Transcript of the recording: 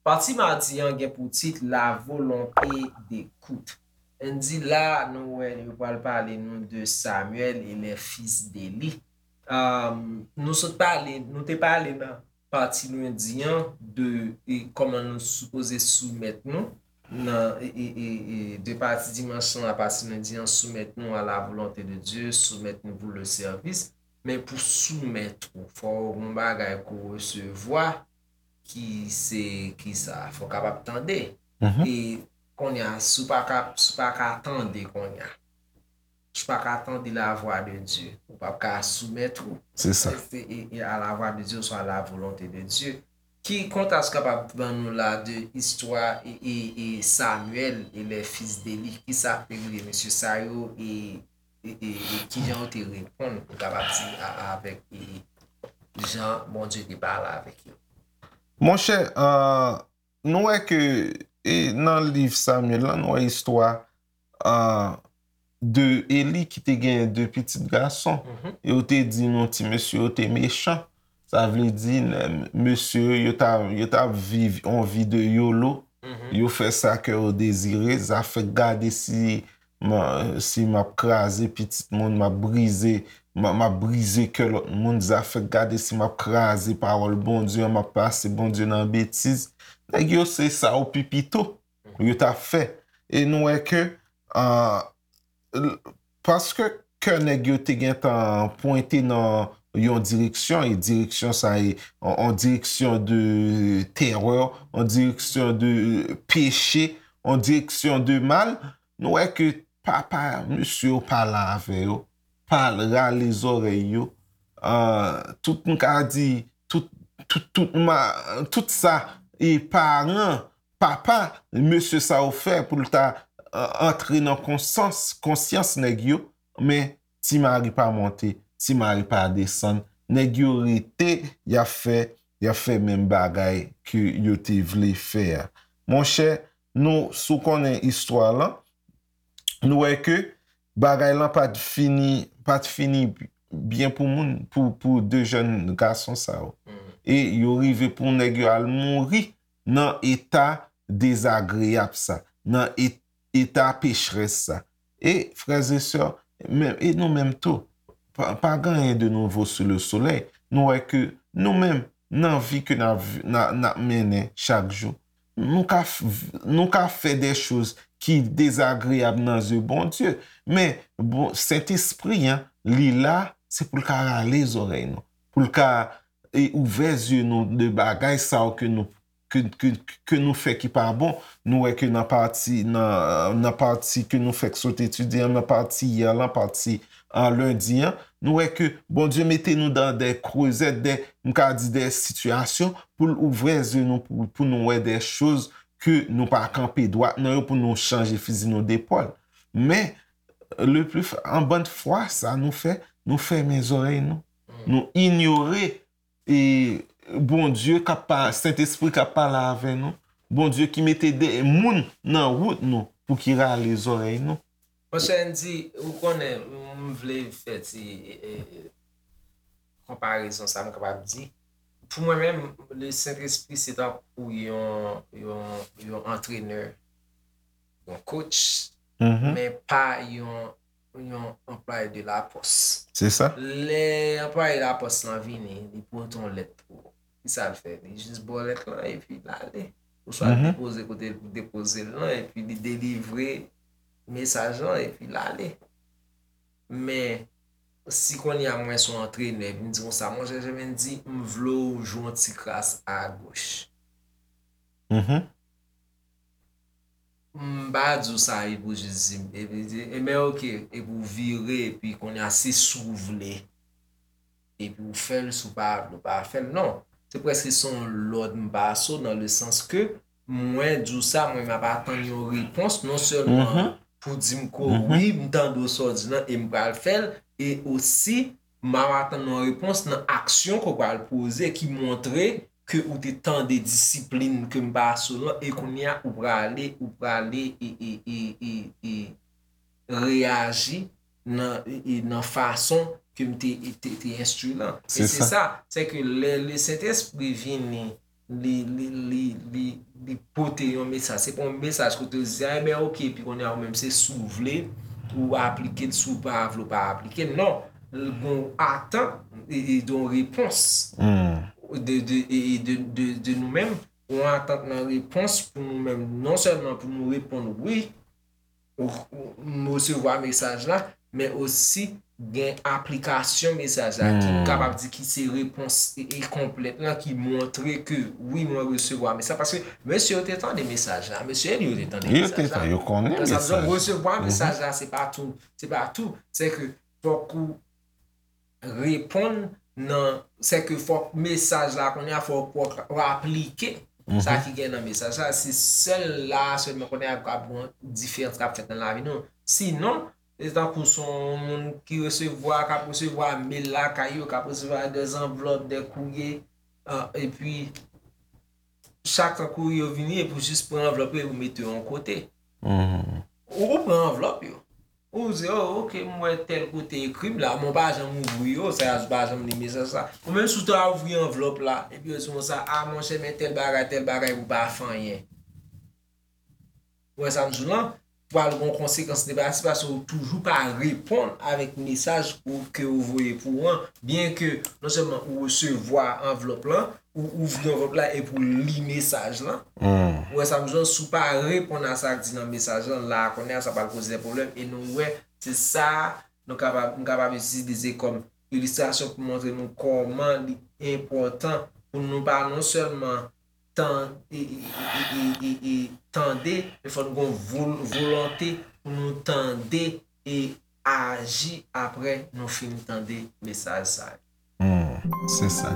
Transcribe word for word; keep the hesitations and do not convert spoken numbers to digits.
Pati madi an gen pou tit La volonté d'écoute. N di la, nou wè, yo pral pale nou de Samuel et les fils d'Éli. Um, nou sot pale, nou te pale nan pati lendi an de e, kòman nou sipoze soumèt nou nan e, e, e, e, de pati dimanch lan, a pati lendi an, soumèt nou à la volonté de Dieu, soumèt nou pour le service. Men pou soumèt ou, fò w gen yon bagay ke w resevwa ki se, ki sa, fò w kapab tande. E kounye a, si w pa ka, si w pa ka tande kounye a, si w pa ka tande la voix de Dieu, ou p ap ka soumèt ou. Se sa. E, e, e à la voix de Dieu, soit à la volonté de Dieu. Ki kontras kapab ban nou la de istwa e, e, e Samuel et les fils d'Éli? Ki sa te rive mesye sa yo e, e, e, e ki jan yo te reponn, nou kapab di, a, avèk e, jan Bondye te pale avèk yo? Monchè, euh, nou wè ke e, nan liv Samuel lan, nou wè istwa euh, de Eli ki te gen de pitit gason. E yo te di nou ti mesye yo te mechan. Sa vle di, mesye yo ta, yo ta viv yon vi de yolo. Yo fè sa kè yo dezire. Zafè gade si, si m ap kraze pitit moun, m ap brize, m ap brize kè lòt moun. Zafè gade si m ap kraze pawòl Bondye an, m ap pase Bondye nan betiz. Nèg yo se sa yo pi pito yo t ap fè. E nou wè ke, paske kè nèg yo te gentan pwente nan yon direksyon, e direksyon sa e yon direksyon de terè, yon direksyon de peche, yon direksyon de mal, nou wè ke papa mesye yo pale avè yo, pale, rale zòrèy yo. Tout, m ka di, tout, tout, tout, ma, tout sa e paran papa mesye sa yo fè pou l ta antre nan konsyans, konsyans nèg yo, men ti mari pa monte, ti mari pa desann, nèg yo rete, y ap fè, y ap fè menm bagay ke yo te vle fè a. Monchè, nou, si w konnen istwa lan, nou wè ke bagay lan pa t fini, pa t fini byen pou moun, pou, pou de jèn gason sa yo. E yo rive pou nèg yo al mouri nan eta dezagreyab sa, nan eta pechrès sa. E, frè e sè, e nou menm tou, pa gen anyen de nouvo sou le solèy. Nou wè ke nou menm, nan vi ke n ap mennen chak jou, nou ka, nou ka fè de choz ki dezagreyab nan zye Bondye. Men, bon, Sentespri an, li la, se pou l ka rale zòrèy nou, pou l ka e ouvè zye nou de bagay sa yo ke nou, ke, ke, ke nou fè ki pa bon. Nou wè ke nan pati, nan, nan pati ke nou fèk sot etidye an, nan pati yè lan, pati an lendi an, nou wè ke Bondye mete nou dan de krezèt, de, m ka di de sitiyasyon pou l ouvè zye nou, pou, pou nou wè de choz ke nou pa kanpe dwat nan yo, pou nou chanje fizi nou de pòl. Men, le pli, an bann fwa, sa nou fè, nou fèmen zòrèy nou. Nou inyore e Bondye k ap pa, Sentespri k ap pale avè nou, Bondye ki mete de moun nan wout nou pou ki rale zòrèy nou. Monchè Andy, ou konnen, m vle fè ti e, e, konparezon sa m kapab di. Pou mwen menm, le Sentespri se tankou yon, yon, yon antrenè, yon coach, men pa yon yon anplwaye de lapòs. Se sa. Lè anplwaye lapòs lan vini, li pote yon lèt pou ou. Ki sa l fè? Li jis ba w lèt lan epi l ale. Oswa l depoze kote l pou depoze l lan epi li delivre mesaj lan epi l ale. Men, si kounye a mwen se yon antrenè epi m di konsa, monchè Jemendie, m vle w jwe yon ti kras agoch. M pa di w sa epi w jis di m, epi di, ebyen oke, epi w vire, epi kounye a se si w vle, epi w fè l, si w pa vle, w pa fè l. Non, se prèske se yon lòd m pase w, nan le sans ke mwen di w sa, mwen m ap atann yon repons, non sèlman pou di m ke wi, m tande w sa w di lan e m pral fè l, e osi, m ap atann yon repons nan aksyon ke w pral poze ki montre ke ou te tande disiplin ke m pase w lan e kounye a ou prale, ou prale e, e, e, e, e, reyaji nan, e, e nan fason ke m te, te, te enstwi lan. E se sa, se ke lè le Sentespri vini, li, li, li, li, li pote yon mesaj. Se pa yon mesaj kote yo di, a, ebyen, oke, epi kounye a ou menm se si w vle, ou aplike l, si w pa vle, ou pa aplike l. Non, l gon atant, e, e de yon repons de, de, e, e de, de, de nou menm, yon atant nan repons pou nou menm, non sèlman pou nou reponn wi, ou, ou, m resevwa mesaj la, men osi gen aplikasyon mesaj la, ki m kapab di ki se repons e, e konplèt lan, ki montre ke wi, mwen resevwa mesaj. Paske mesye yo te tande mesaj la, mesye Eli yo te tande mesaj la. Yo te tande, yo konnen mesaj la. Resevwa mesaj la, se pa tou, se pa tou. Se ke fòk ou reponn nan, se ke fòk mesaj la kounye a, fòk ou aplike sa ki gen nan mesaj la. Se sèl la sèlman kounye a k ap gen diferans k ap fèt nan lavi nou. Sinon, se tankou se yon moun ki resevwa, k ap resevwa mail lakay yo, k ap resevwa de zanvlòp, de kourye, epi chak tan kourye yo vini, epi ou jis pran anvlòp yo, epi ou mete yo yon kote. Ou, ou pran anvlòp yo. Ou di, oh, oke, m wè tèl kote ekri m la, men w pa janm ouvri yo, sa a, ou pa janm li mesaj sa. Ou menm si w ta ouvri anvlòp la, epi yo di konsa, a, monchè, men tèl bagay, tèl bagay, ou pa fè anyen. Ou wè sa m di w lan? Pral gon konsekans negatif paske ou toujou pa reponn avèk mesaj ou, ke yo voye pou ou an, byen ke non sèlman ou resevwa anvlòp lan, ou ouvri anvlòp la epi ou li mesaj lan. Ou wè sa m di w, si w pa reponn a sa k di nan mesaj lan, la a kounye a sa pral koze de pwoblèm e nou wè se sa nou kapab, m kapab itilize kòm ilistrasyon pou montre nou kòman li enpòtan pou nou pa non sèlman tan, e, e, e, e, e, e tande, men fò n gon vol, volonte pou nou tande e aji apre nou fin tande mesaj sa yo. Se sa.